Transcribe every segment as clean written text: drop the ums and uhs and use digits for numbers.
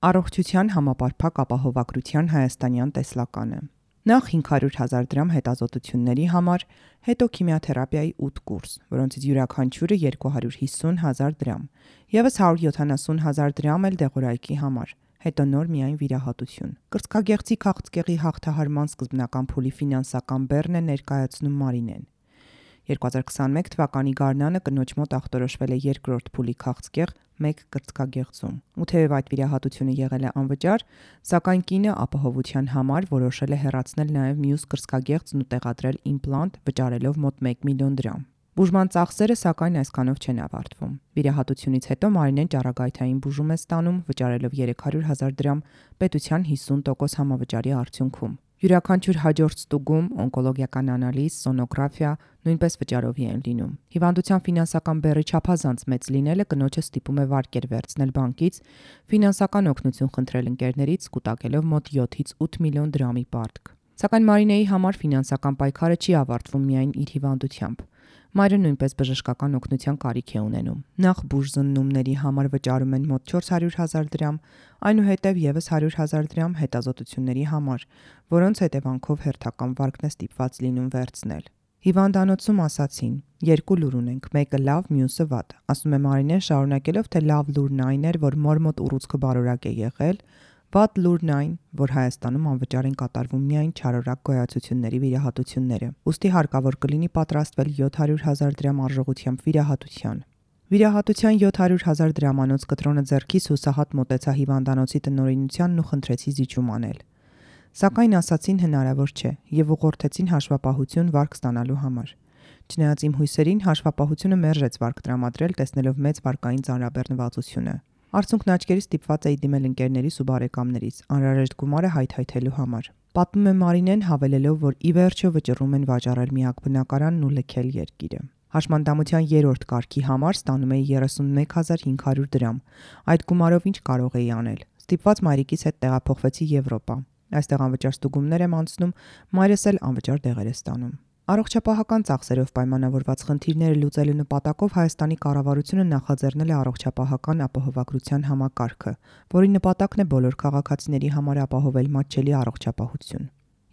Առողջության համապարփակ ապահովագրության հայաստանյան տեսլականը։ Նախ 500,000 դրամ հետազոտությունների համար, հետո քիմիաթերապիայի 8 կուրս, որոնցից յուրաքանչյուրը 250,000 դրամ, ևս 170,000 դրամ էլ դեղորայքի համար, հետո նոր միայն վիրահատություն։ Կրծքագեղձի քաղցկեղի հաղթահարման սկզբնական փուլի ֆինանսական բեռն է ներկայացնում Մարինեն։ 2021 թվականի գարնանը կնոջ մոտ ախտորոշվել է երկրորդ փուլի քաղցկեղ 1 կրծքագեղձում։ Ու թեև այդ վիրահատությունը եղել է անվճար, սակայն կինը ապահովության համար որոշել է հեռացնել նաև մյուս կրծքագեղձն ու տեղադրել իմպլանտ, վճարելով մոտ 1 միլիոն դրամ։ Բուժման ծախսերը սակայն այսքանով չեն ավարտվում։ Վիրահատությունից հետո Մարինեն ճառագայթային բուժում է ստանում, վճարելով 300,000 դրամ պետության 50% համավճարի արդյունքում։ Յուրաքանչյուր հաջորդ ստուգում, օնկոլոգիական անալիզ, սոնոգրաֆիա նույնպես վճարովի են լինում։ Հիվանդության ֆինանսական բեռի չափազանց մեծ լինելը կնոջը ստիպում է վարկեր վերցնել բանկից, ֆինանսական օգնություն խնդրել ընկերներից, կուտակելով մոտ 7-ից 8 միլիոն դրամի պարտք։ Սակայն Մարինեի համար ֆինանսական պայքարը չի ավարտվում միայն իր հիվանդությամբ։ Մայրը նույնպես բժշկական օգնության կարիք է ունենում։ Նախ բուժզննումների համար վճարում են մոտ 400,000 դրամ, այնուհետև ևս 100,000 դրամ հետազոտությունների համար, որոնց հետևանքով հերթական վարկն է ստիպված լինում վերցնել։ Հիվանդանոցում ասացին. երկու լուր ունենք, մեկը լավ, մյուսը վատ, ասում է Մարինեն, շարունակելով, թե լավ լուրն այն էր, որ մոր մոտ ուռուցքը բարորակ է եղել, վատ լուրն այն, որ Հայաստանում անվճար են կատարվում միայն չարորակ գոյացությունների վիրահատությունները։ Ուստի հարկավոր կլինի պատրաստվել 700,000 դրամ արժողությամբ վիրահատության։ Վիրահատության 700,000 դրամանոց կտրոնը ձեռքիս հուսահատ մոտեցա հիվանդանոցի տնօրինությանն ու խնդրեցի զիջում անել։ Սակայն ասացին հնարավոր չէ եւ ուղղորդեցին հաշվապահություն վարկ ստանալու համար։ Չնայած իմ հույսերին, հաշվապահությունը մերժեց վարկ տրամադրել, տեսնելով մեծ վարկային ծանրաբեռնվածությունը։ Արդյունքն աչքերից ստիպված էի դիմել ընկերներիս ու բարեկամներիս, անհրաժեշտ գումարը հայթայթելու համար։ Պատմում է Մարինեն, հավելելով, որ ի վերջո վճռում են վաճառել միակ բնակարանն ու լքել երկիրը։ Հաշմանդամության 3-րդ կարգի համար ստանում էի 31,500 դրամ։ Այդ գումարով ինչ կարող էի անել։ Ստիպված մայրիկիս հետ տեղափոխվեցի Եվրոպա։ Այստեղ անվճար ստուգումներ եմ անցնում, մայրս էլ անվճար դեղեր է ստանում։ Առողջապահական ծախսերով պայմանավորված խնդիրները լուծելու նպատակով Հայաստանի կառավարությունը նախաձեռնել է առողջապահական ապահովագրության համակարգը, որի նպատակն է բոլոր քաղաքացիների համար ապահովել մատչելի առողջապահություն։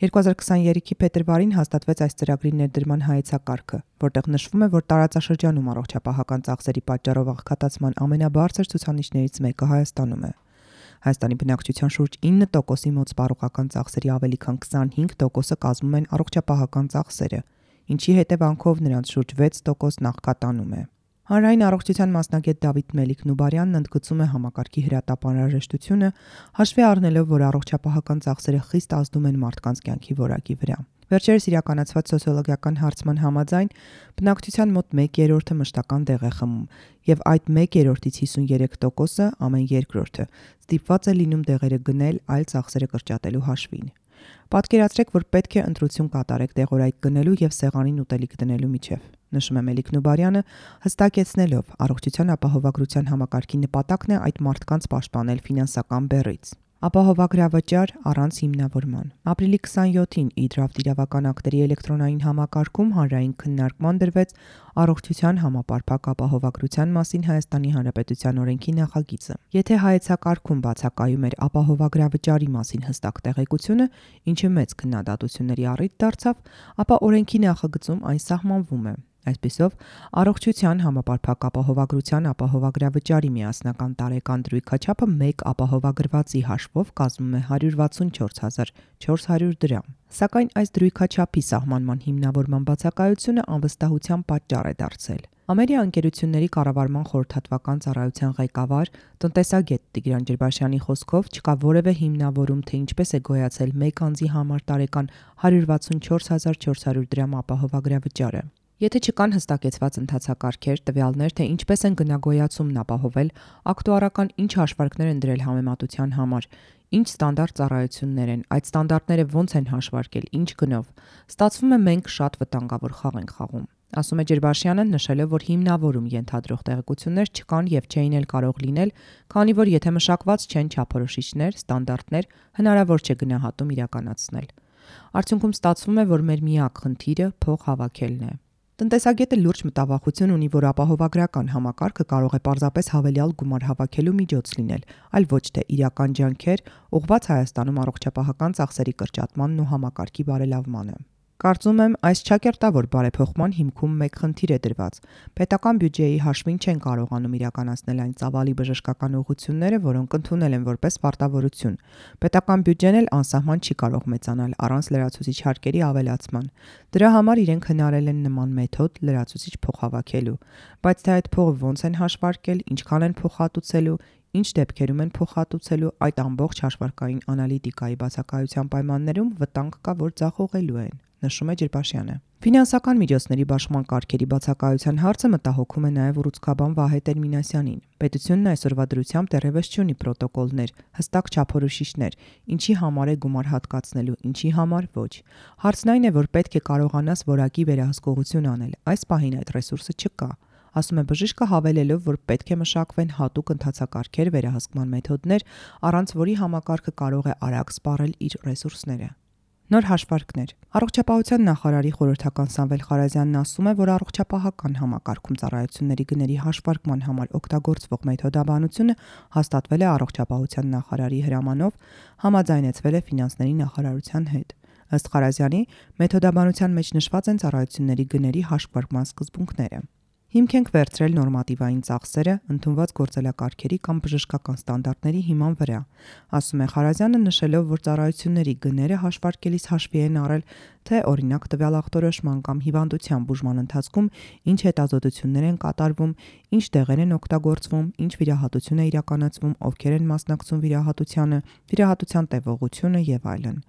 2023-ի փետրվարին հաստատվեց այս ծրագրի ներդրման հայեցակարգը, որտեղ նշվում է, որ տարածաշրջանում առողջապահական ծախսերի պատճառով աղքատացման ամենաբարձր ցուցանիշներից մեկը Հայաստանում է։ Հայաստանի բնակչության շուրջ 9%-ի մոտ սպառողական ծախսերի ավելի քան 25%-ը կազմում են առողջապահական ծախսերը, ինչի հետևանքով նրանց շուրջ 6% նախկատանում է։ Հանրային առողջության մասնագետ Դավիթ Մելիք-Նուբարյանն ընդգծում է համակարգի հրատապ անհրաժեշտությունը, հաշվի առնելով, որ առողջապահական ծախսերը խիստ ազդում են մարդկանց կյանքի որակի վրա։ Վերջերս իրականացված սոցիոլոգիական հարցման համաձայն բնակչության մոտ 1/3-ը մշտական դեղ է խմում, եւ այդ 1/3-ից 53%-ը ամեն երկրորդը ստիպված է լինում դեղերը գնել այլ ծախսերը կրճատելու հաշվին։ Պատկերացրեք, որ պետք է ընտրություն կատարեք դեղորայք գնելու եւ սեղանին ուտելիք դնելու միջև, նշում է Մելիք-Նուբարյանը, հստակեցնելով, առողջության ապահովագրության համակարգի նպատակն է այդ մարդկանց պաշտպանել ֆինանսական բեռից։ Ապահովագրավճար առանց հիմնավորման։ Ապրիլի 27-ին Իդրավտ իրավական ակտերի էլեկտրոնային համակարգում հանրային քննարկման դրվեց առողջության համապարփակ ապահովագրության մասին Հայաստանի Հանրապետության օրենքի նախագիծը։ Եթե հայեցակարգում բացակայում էր ապահովագրավճարի մասին հստակ տեղեկությունը, ինչը մեծ քննադատությունների առիթ դարձավ, ապա օրենքի նախագծում այն սահմանվում է։ Այսպիսով, առողջության համապարփակ ապահովագրության ապահովագրավճարի միասնական տարեկան դրույքաչափը 1 ապահովագրվածի հաշվով կազմում է 164,400 դրամ։ Սակայն այս դրույքաչափի սահմանման հիմնավորման բացակայությունը անվստահության պատճառ է դարձել։ Ամերիա ընկերությունների կառավարման խորհրդատվական ծառայության ղեկավար, տնտեսագետ Տիգրան Ջրբաշյանի խոսքով չկա որևէ հիմնավորում, թե ինչպես է գոյացել 1 անձի համար տարեկան 164,400 դրամ ապահովագրավճարը։ Եթե չկան հստակեցված ընթացակարգեր, տվյալներ, թե ինչպես են գնագոյացումն ապահովել, ակտուարական ինչ հաշվարկներ են դրել համեմատության համար, ինչ ստանդարտ ծառայություններ են, այդ ստանդարտները ոնց են հաշվարկել, ինչ գնով, ստացվում է մենք շատ վտանգավոր խաղ ենք խաղում։ Ասում է Ջրբաշյանը, նշելով, որ հիմնավորում ենթադրող տեղեկություններ չկան եւ չէին էլ կարող լինել, քանի որ եթե մշակված չեն չափորոշիչներ, ստանդարտներ, հնարավոր չէ գնահատում իրականացնել։ Արդյունքում ստացվում է, որ մեր միակ խնդիրը փող հավաքելն է։ Տնտեսագետը լուրջ մտավախություն ունի, որ ապահովագրական համակարգը կարող է պարզապես հավելյալ գումար հավաքելու միջոց լինել, այլ ոչ թե իրական ջանքեր ուղղված Հայաստանում առողջապահական ծախսերի կրճատմանն ու համակարգի բարելավմանը։ Կարծում եմ, այս չակերտավոր բարեփոխման հիմքում մեկ խնդիր է դրված։ Պետական բյուջեի հաշվին չեն կարողանում իրականացնել այն ծավալի բժշկական ուղղությունները, որոնք ընդունել են որպես պարտավորություն։ Պետական բյուջեն էլ անսահման չի կարող մեծանալ առանց լրացուցիչ հարկերի ավելացման։ Դրա համար իրենք հնարել են նման մեթոդ լրացուցիչ փող հավաքելու, բայց թե այդ փողը ոնց են հաշվարկել, ինչքան են փոխհատուցելու, ինչ դեպքերում են փոխհատուցելու, այդ ամբողջ հաշվարկային անալիտիկայի բացակայության պայմաններում վտանգ կա, որ ձախողելու են, նշում է Ջրբաշյանը։ Ֆինանսական միջոցների բաշխման կարգերի բացակայության հարցը մտահոգում է նաև ուռուցքաբան Վահե Տեր-Մինասյանին։ Պետությունն այսօրվա դրությամբ դեռևս չունի պրոտոկոլներ, հստակ չափորոշիչներ, ինչի համար է գումար հատկացնելու, ինչի համար ոչ։ Հարցն այն է, որ պետք է կարողանաս որակի վերահսկողություն անել։ Այս պահին այդ ռեսուրսը չկա։ Ասում է բժիշկը, հավելելով, որ պետք է մշակվեն հատուկ ընթացակարգեր, վերահսկման մեթոդներ, առանց որի համակարգը կարող է արագ սպառել իր ռեսուրսները։ Նոր հաշվարկներ։ Առողջապահության նախարարի խորհրդական Սամվել Խարազյանն ասում է, որ առողջապահական համակարգում ծառայությունների գների հաշվարկման համար օգտագործվող մեթոդաբանությունը հաստատվել է առողջապահության նախարարի հրամանով, համաձայնեցվել է ֆինանսների նախարարության հետ։ Ըստ Խարազյանի, մեթոդաբանության մեջ նշված են ծառայությունների գների հաշվարկման սկզբունքները։ Հիմք ենք վերցրել նորմատիվային ծախսերը ընդունված գործելակարգերի կամ բժշկական ստանդարտների հիման վրա, ասում է Խարազյանը, նշելով, որ ծառայությունների գները հաշվարկելիս հաշվի են առել, թե օրինակ տվյալ ախտորոշման կամ հիվանդության բուժման ընթացքում ինչ հետազոտություններ են կատարվում, ինչ դեղեր են օգտագործվում, ինչ վիրահատություն է իրականացվում, ովքեր են մասնակցում վիրահատությանը, վիրահատության տևողությունը եւ այլն։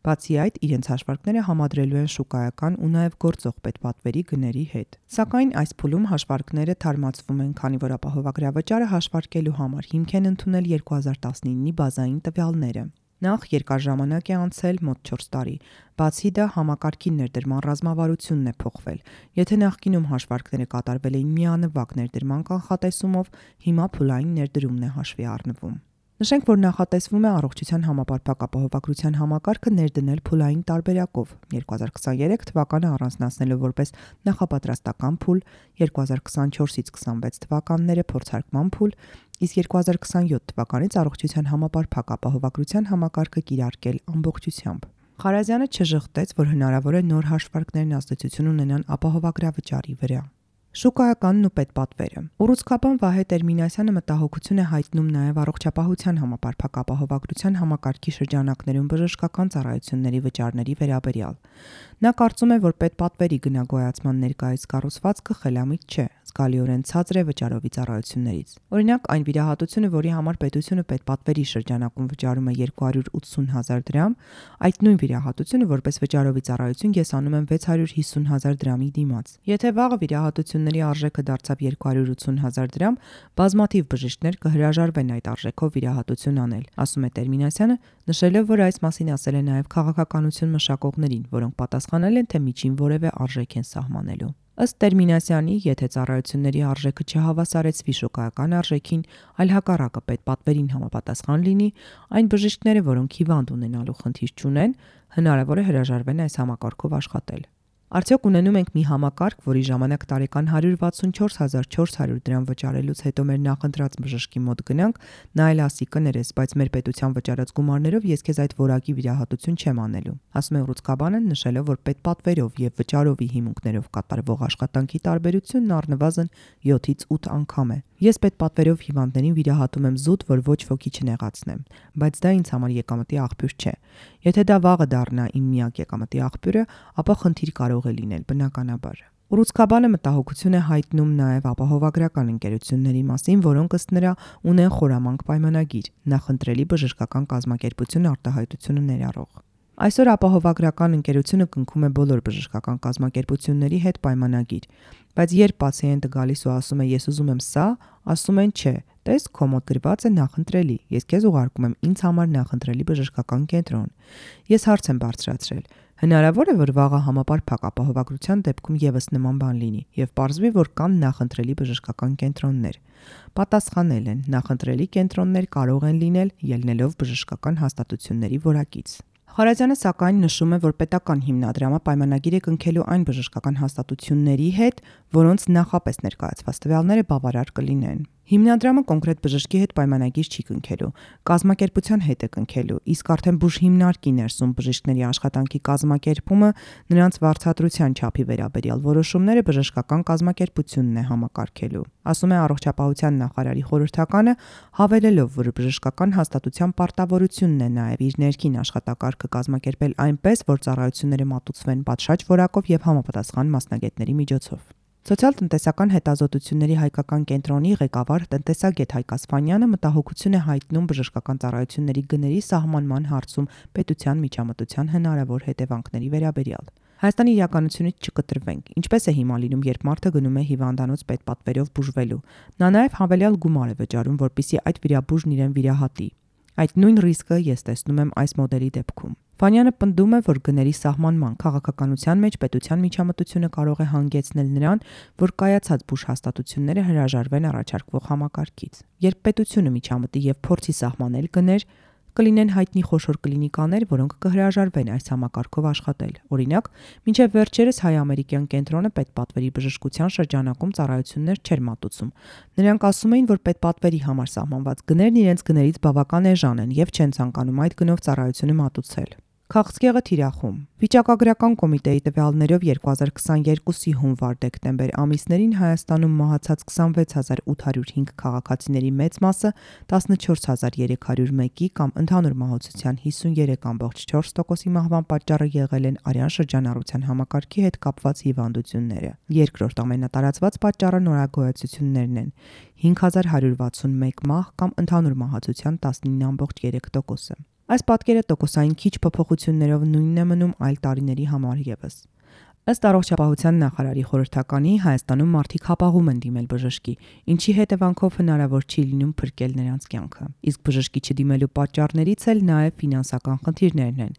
Բացի այդ, իրենց հաշվարկները համադրելու են շուկայական ու նաև գործող պետպատվերի գների հետ։ Սակայն այս փուլում հաշվարկները թարմացվում են, քանի որ ապահովագրավճարը հաշվարկելու համար հիմք են ընդունել 2019-ի բազային տվյալները։ Նախ երկար ժամանակ է անցել, մոտ 4 տարի։ Բացի դա, համակարգի ներդրման ռազմավարությունն է փոխվել։ Եթե նախկինում հաշվարկները կատարվել էին միանվագ ներդրման կանխատեսումով, հիմա փուլային ներդրումն է հաշվի առնվում։ Նշենք, որ նախատեսվում է առողջության համապարփակ ապահովագրության համակարգը ներդնել փուլային տարբերակով 2023 թվականը առանձնացնելով որպես նախապատրաստական փուլ, 2024-ից 26 թվականները փորձարկման փուլ, իսկ 2027 թվականից առողջության համապարփակ ապահովագրության համակարգը կիրարկել ամբողջությամբ։ Խարազյանը չժխտեց, որ հնարավոր է նոր հաշվարկներն ազդեցություն ունենան ապահովագրավճարի վրա։ Շուկայականն ու պետպատվերը։ Ուռուցքաբան Վահե Տեր-Մինասյանը մտահոգություն է հայտնում նաև առողջապահության համապարփակ ապահովագրության համակարգի շրջանակներում բժշկական ծառայությունների վճարների վերաբերյալ։ Նա կարծում է, որ պետպատվերի գնագոյացման ներկայիս կառուցվածքը խելամիտ չէ, զգալիորեն ցածր է վճարովի ծառայություններից։ Օրինակ, այն վիրահատությունը, որի համար պետությունը պետպատվերի շրջանակում վճարում է 280,000 դրամ, այդ նույն վիրահատությունը որպես վճարովի ծառայություն կեսանում են 650,000 դրամի դիմաց։ Եթե վաղը վիրահատությունների արժեքը դարձավ 280,000 դրամ, բազմաթիվ բժիշկներ կհրաժարվեն այդ արժեքով վիրահատություն անել, ասում է Տեր-Մինասյանը, նշելով, որ այս մասին ասել է նաև քաղաքականություն մշակողներին, որոնք պատասխանել են, թե միջին որևէ արժեք են սահմանելու։ Ըստ Տեր-Մինասյանի, եթե ծառայությունների արժեքը չհավասարեցվի շոկայական արժեքին, այլ հակառակը պետպատվերին համապատասխան լինի, այն բժիշկները, որոնք հիվանդ ունենալու խնդիր չունեն, հնարավոր է հրաժարվեն այս համակարգով աշխատել։ Արդյոք ունենում ենք մի համակարգ, որի ժամանակ տարեկան 164,400 դրամ վճարելուց հետո մեր նախընտրած բժշկի մոտ գնանք, նա էլ ասի կներես, բայց մեր պետության վճարած գումարներով ես քեզ այդ որակի վիրահատություն չեմ անելու, ասում է Ուռուցքաբանը, նշելով, որ պետպատվերով եւ վճարովի հիմունքներով կատարվող աշխատանքի տարբերությունն առնվազն 7-ից 8 անգամ է։ Ես պետպատվերով հիվանդներին վիրահատում եմ զուտ, որ ոչ ոքի չնեղացնեմ, բայց դա ինձ համար եկամտի աղբյուր չէ։ Եթե դա վաղը դառնա իմ միակ եկամտի աղբյուրը, ապա խնդիր կարող է լինել, բնականաբար։ Ուռուցքաբանը մտահոգություն է հայտնում նաև ապահովագրական ընկերությունների մասին, որոնք ըստ նրա ունեն խորամանկ պայմանագիր, նախընտրելի բժշկական կազմակերպություն արտահայտությունը ներառող։ Այսօր ապահովագրական ընկերությունը կնքում է բոլոր բժշկական կազմակերպությունների հետ պայմանագիր, բայց երբ պացիենտը գալիս ու ասում է ես ուզում եմ սա, ասում են չէ, տես քո մոտ գրված է նախընտրելի, ես քեզ ուղարկում եմ ինձ համար նախընտրելի բժշկական կենտրոն։ Ես հարց եմ բարձրացրել. հնարավոր է, որ վաղը համապարփակ ապահովագրության դեպքում եւս նման բան լինի եւ պարզվի, որ կան նախընտրելի բժշկական կենտրոններ։ Պատասխանել են, նախընտրելի կենտրոններ կարող են լինել ելնելով բժշկական հաստատությունների որակից։ Խարազյանը սակայն նշում է, որ պետական հիմնադրամը պայմանագիր է կնքելու այն բժշկական հաստատությունների հետ, որոնց նախապես ներկայացված տվյալները բավարար կլինեն։ Հիմնադրամը կոնկրետ բժշկի հետ պայմանագիր չի կնքելու, կազմակերպության հետ է կնքելու, իսկ արդեն բուժհիմնարկի ներսում բժիշկների աշխատանքի կազմակերպումը նրանց վարձատրության չափի վերաբերյալ որոշումները բժշկական կազմակերպությունն է համակարգելու, ասում է Առողջապահության նախարարի խորհրդականը, հավելելով, որ բժշկական հաստատության պարտավորությունն է նաև իր ներքին աշխատակարգը կազմակերպել այնպես, որ ծառայությունները մատուցվեն պատշաճ որակով եւ համապատասխան մասնագետների միջոցով։ Սոցիալ-տնտեսական հետազոտությունների հայկական կենտրոնի ղեկավար տնտեսագետ Հայկ Ասֆանյանը մտահոգություն է հայտնում բժշկական ծառայությունների գների սահմանման հարցում պետության միջամտության հնարավոր հետևանքների վերաբերյալ։ Հայաստանի իրականությունից չկտրվենք։ Ինչպես է հիմա լինում, երբ մարդը գնում է հիվանդանոց պետպատվերով բուժվելու։ Նա նաև հավելյալ գումար է վճարում, որպեսզի այդ վիրաբուժն իրեն վիրահատի։ Այդ նույն ռիսկը ես տեսնում եմ այս մոդելի դեպքում։ Վանյանը պնդում է, որ գների սահմանման քաղաքականության մեջ պետության միջամտությունը կարող է հանգեցնել նրան, որ կայացած բուժհաստատությունները հրաժարվեն առաջարկվող համակարգից։ Երբ պետությունը միջամտի եւ փորձի սահմանել գներ, կլինեն հայտնի խոշոր կլինիկաներ, որոնք կհրաժարվեն այս համակարգով աշխատել։ Օրինակ, մինչև վերջերս հայ-ամերիկյան կենտրոնը պետպատվերի բժշկության շրջանակում ծառայություններ չէր մատուցում։ Նրանք ասում էին, որ պետպատվերի համար սահմանված գներն իրենց գներից բավական էժան են եւ չեն ցանկանում այդ գնով ծառայությունը մատուցել։ Քաղցկեղը թիրախում։ Վիճակագրական կոմիտեի տվյալներով 2022-ի հունվար-դեկտեմբեր ամիսներին Հայաստանում մահացած 26805 քաղաքացիների մեծ մասը 14301-ի կամ ընդհանուր մահացության 53.4%-ի մահվան պատճառը եղել են արյան շրջանառության համակարգի հետ կապված հիվանդությունները։ Երկրորդ ամենատարածված պատճառը նորագոյացություններն են՝ 5161 մահ կամ ընդհանուր մահացության 19.3%-ը։ Այս պատկերը տոկոսային քիչ փոփոխություններով նույնն է մնում այլ տարիների համար ևս։ Ըստ Առողջապահության նախարարի խորհրդականի Հայաստանում մարդիկ հապաղում են դիմել բժշկի, ինչի հետևանքով հնարավոր չի լինում փրկել նրանց կյանքը։ Իսկ բժշկի չդիմելու պատճառներից էլ նաև ֆինանսական խնդիրներն են,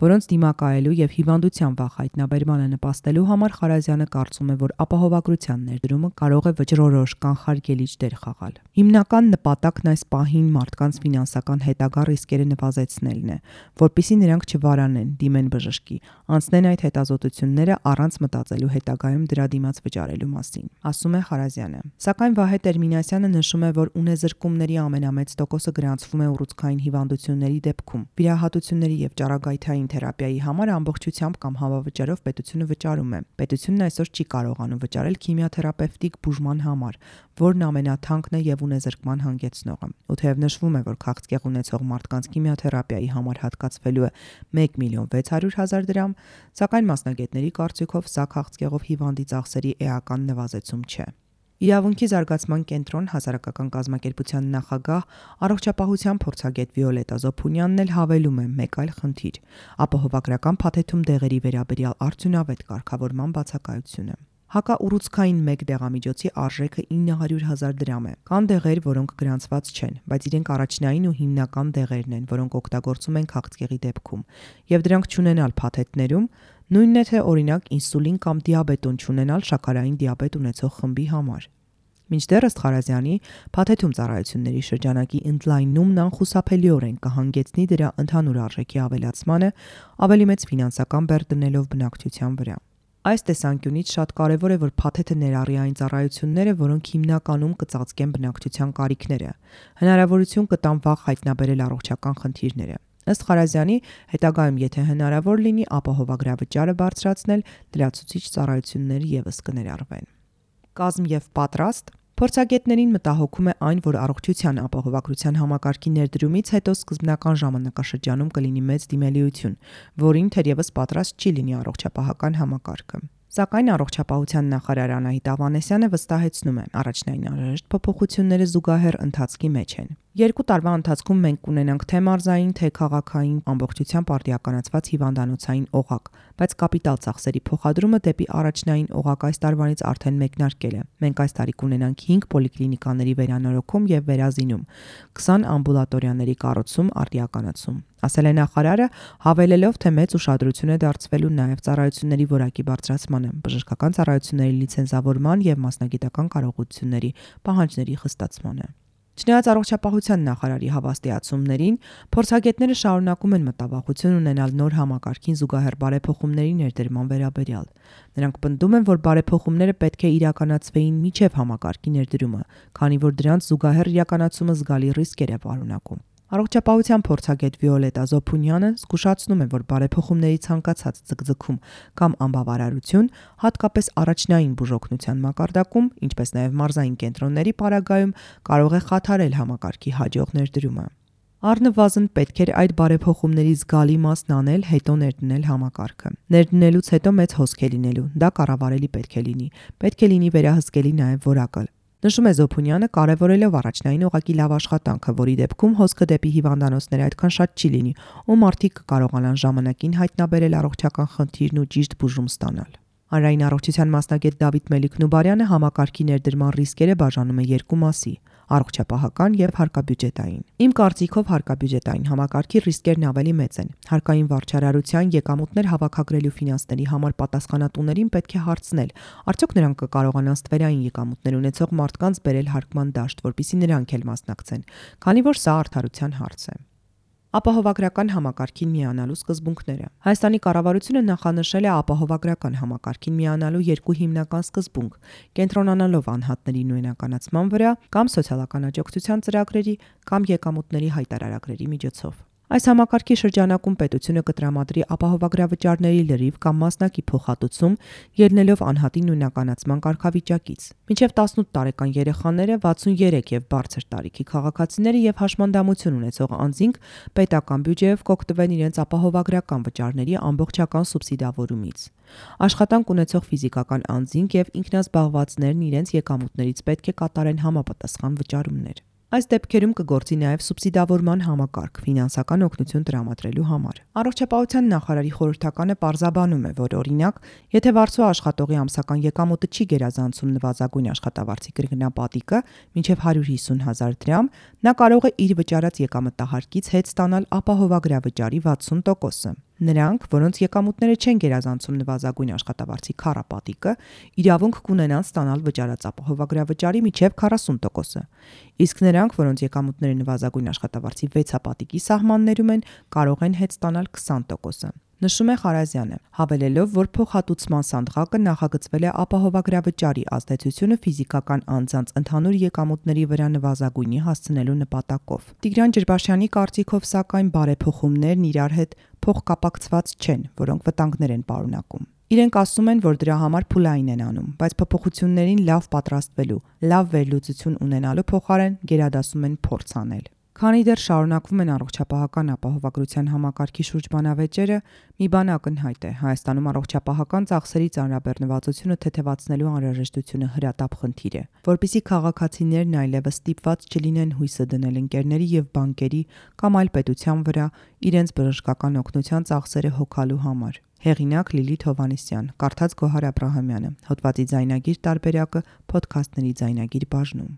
որոնց դիմակայելու եւ հիվանդության վաղ հայտնաբերմանը նպաստելու համար Խարազյանը կարծում է, որ ապահովագրության ներդրումը կարող է վճռորոշ կանխարգելիչ դեր խաղալ։ Հիմնական նպատակն այս պահին մարդկանց ֆինանսական հետագա ռիսկերը նվազեցնելն է, որpիսի նրանք չվարանեն, դիմեն բժշկի, անցնեն այդ հետազոտությունները առանց մտածելու հետագայում դրա դիմաց վճարելու մասին, ասում է Խարազյանը։ Սակայն Վահե Տերմինասյանը նշում է, որ ունեզրկումների ամենամեծ տոկոսը գրանցվում է ուռուցքային հիվանդությունների դեպքում։ Վիրահատությունների եւ ճառագայթային թերապիայի համար ամբողջությամբ կամ հավավճարով պետությունը վճարում է։ Պետությունն այսօր չի կարողանում վճարել քիմիոթերապևտիկ բուժման համար, որն ամենաթանկն է եւ ունեզրկման հանգեցնողը։ Ու թեև նշվում է, որ քաղցկեղ ունեցող մարդկանց քիմիոթերապիայի համար հատկացվելու է 1.600.000 դրամ, սակայն մասնագետների կարծիքով սա քաղցկեղով հիվանդի ծախսերի էական նվազեցում չէ։ Իրավունքի զարգացման կենտրոն հասարակական կազմակերպության նախագահ առողջապահության փորձագետ Վիոլետա Զոփունյանն էլ հավելում է մեկ այլ խնդիր՝ ապահովագրական փաթեթում դեղերի վերաբերյալ արդյունավետ կարգավորման բացակայությունը։ Հակաուռուցքային մեկ դեղամիջոցի արժեքը 900.000 դրամ է։ Կան դեղեր, որոնք գրանցված չեն, բայց իրենք առաջնային ու հիմնական դեղերն են, որոնք օգտագործում են քաղցկեղի դեպքում, եւ դրանք չունենալ փաթեթներում նույնն է թե օրինակ ինսուլին կամ դիաբետոն չունենալ շաքարային դիաբետ ունեցող խմբի համար։ Մինչդեռ ըստ Խարազյանի, փաթեթում ծառայությունների շրջանակի ընդլայնումն անխուսափելիորեն կհանգեցնի դրա ընդհանուր արժեքի ավելացմանը, ավելի մեծ ֆինանսական բեռ դնելով բնակչության վրա։ Այս տեսանկյունից շատ կարևոր է, որ փաթեթը ներառի այն ծառայությունները, որոնք հիմնականում կծածկեն բնակչության կարիքները, հնարավորություն կտան վաղ հայտնաբերել առողջական խնդիրները։ Ըստ Խարազյանի, հետագայում եթե հնարավոր լինի, ապահովագրավճարը բարձրացնել, լրացուցիչ ծառայություններ ևս կներառվեն։ Կազմ եւ պատրաստ Փորձագետներին մտահոգում է այն, որ առողջության ապահովագրության համակարգի ներդրումից հետո սկզբնական ժամանակաշրջանում կլինի մեծ դիմելիություն, որին թերևս պատրաստ չի լինի առողջապահական համակարգը։ Սակայն առողջապահության նախարար Անահիտ Ավանեսյանը վստահեցնում է, առաջնային անհրաժեշտ փոփոխությունները զուգահեռ ընթացքի մեջ են։ 2 տարվա ընթացքում մենք կունենանք թե մարզային, թե քաղաքային ամբողջությամբ արդիականացված հիվանդանոցային օղակ, բայց կապիտալ ծախսերի փոխադրումը դեպի առաջնային օղակ այս տարվանից արդեն մեկնարկել է։ Մենք այս տարի կունենանք 5 պոլիկլինիկաների վերանորոգում եւ վերազինում, 20 ամբուլատորիաների կառուցում, արդիականացում, ասել է նախարարը, հավելելով, թե մեծ ուշադրություն է դարձվելու նաեւ ծառայությունների որակի բարձրացմանը, բժշկական ծառայությունների լիցենզավորման եւ մասնագիտական կարողությունների պահանջների խստացմանը։ Չնայած առողջապահության նախարարի հավաստիացումներին, փորձագետները շարունակում են մտավախություն ունենալ նոր համակարգին զուգահեռ բարեփոխումների ներդրման վերաբերյալ։ Նրանք պնդում են, որ բարեփոխումները պետք է իրականացվեին մինչև համակարգի ներդրումը, քանի որ դրանց զուգահեռ իրականացումը զգալի ռիսկեր է պարունակում։ Առողջապահության փորձագետ Վիոլետա Զոփունյանը զգուշացնում է, որ բարեփոխումների ցանկացած ձգձգում կամ անբավարարություն, հատկապես առաջնային բուժօգնության մակարդակում, ինչպես նաև մարզային կենտրոնների պարագայում, կարող է խաթարել համակարգի հաջող ներդրումը։ Առնվազն պետք էր այդ բարեփոխումների զգալի մասն անել, հետո ներդնել համակարգը։ Ներդնելուց հետո մեծ հոսք է լինելու, դա կառավարելի պետք է լինի։ Պետք է լինի վերահսկելի նաև որակը։ Նշում է Զոփունյանը, կարևորելով առաջնային ուղղակի լավ աշխատանքը, որի դեպքում հոսքը դեպի հիվանդանոցները այդքան շատ չի լինի, ու մարդիկ կկարողանան ժամանակին հայտնաբերել առողջական խնդիրն ու ճիշտ բուժում ստանալ։ Հանրային առողջության մասնագետ Դավիթ Մելիք-Նուբարյանը համակարգի ներդրման ռիսկերը բաժանում է երկու մասի՝ առողջապահական եւ հարկաբյուջետային։ Իմ կարծիքով հարկաբյուջետային համակարգի ռիսկերն ավելի մեծ են։ Հարկային վարչարարության եկամուտներ հավաքագրելու ֆինանսների համար պատասխանատուներին պետք է հարցնել, արդյոք նրանք կկարողանան ստվերային եկամուտներ ունեցող մարդկանց բերել հարկման դաշտ, որպեսզի նրանք էլ մասնակցեն, քանի որ սա արդարության հարց է։ Ապահովագրական համակարգին միանալու սկզբունքները։ Հայաստանի կառավարությունը նախանշել է ապահովագրական համակարգին միանալու երկու հիմնական սկզբունք՝ կենտրոնանալով անհատների նույնականացման վրա կամ սոցիալական աջակցության ծրագրերի կամ եկամուտների հայտարարագրերի միջոցով։ Այս համակարգի շրջանակում պետությունը կտրամադրի ապահովագրավճարների լրիվ կամ մասնակի փոխհատուցում, ելնելով անհատի նույնականացման կարգավիճակից։ Մինչև 18 տարեկան երեխաները, 63 եւ բարձր տարիքի քաղաքացիները եւ հաշմանդամություն ունեցող անձինք պետական բյուջեով կօգտվեն իրենց ապահովագրական վճարների ամբողջական սուբսիդավորումից։ Աշխատանք ունեցող ֆիզիկական անձինք եւ ինքնազբաղվածներն իրենց եկամուտներից պետք է կատարեն համապատասխան վճարումներ։ Այս դեպքերում կգործի նաև սուբսիդավորման համակարգ ֆինանսական օգնություն տրամադրելու համար։ Առողջապահության նախարարի խորհրդականը պարզաբանում է, որ օրինակ, եթե վարձու աշխատողի ամսական եկամուտը չի գերազանցում նվազագույն աշխատավարձի կրկնապատիկը մինչև 150,000 դրամ, նա կարող է իր վճարած եկամտահարկից հետ ստանալ ապահովագրավճարի 60%-ը։ Նրանք, որոնց եկամուտները չեն գերազանցում նվազագույն աշխատավարձի քառապատիկը, իրավունք կունենան ստանալ վճարած ապահովագրավճարի մինչև 40%-ը, իսկ նրանք, որոնց եկամուտները նվազագույն աշխատավարձի 6-ապատիկի սահմաններում են, կարող են հետ ստանալ 20%-ը։ Նշում է Խարազյանը, հավելելով, որ փոխհատուցման սանդղակը նախագծվել է ապահովագրավճարի ազդեցությունը ֆիզիկական անձանց ընդհանուր եկամուտների վրա նվազագույնի հասցնելու նպատակով։ Տիգրան Ջրբաշյանի կարծիքով, սակայն, բարեփոխումներն իրար հետ փոխկապակցված չեն, որոնք վտանգներ են պարունակում։ Իրենք ասում են, որ դրա համար փուլային են անում, բայց փոփոխություններին լավ պատրաստվելու, լավ վերլուծություն ունենալու փոխարեն գերադասում են փորձ անել։ Քանի դեռ շարունակվում են առողջապահական ապահովագրության համակարգի շուրջ բանավեճերը, մի բան ակնհայտ է՝ Հայաստանում առողջապահական ծախսերի ծանրաբեռնվածությունը թեթևացնելու անհրաժեշտությունը հրատապ խնդիր է, որպեսզի քաղաքացիներն այլևս ստիպված չլինեն հույսը դնել ընկերների եւ բանկերի կամ այլ պետության վրա իրենց բժշկական օգնության ծախսերը հոգալու համար։ Հեղինակ Լիլիթ Հովհաննիսյան, կարդաց Գոհար Աբրահամյանը, հոդվածի ձայնագիր տարբերակը Փոդքասթների ձայնագիր բաժնում։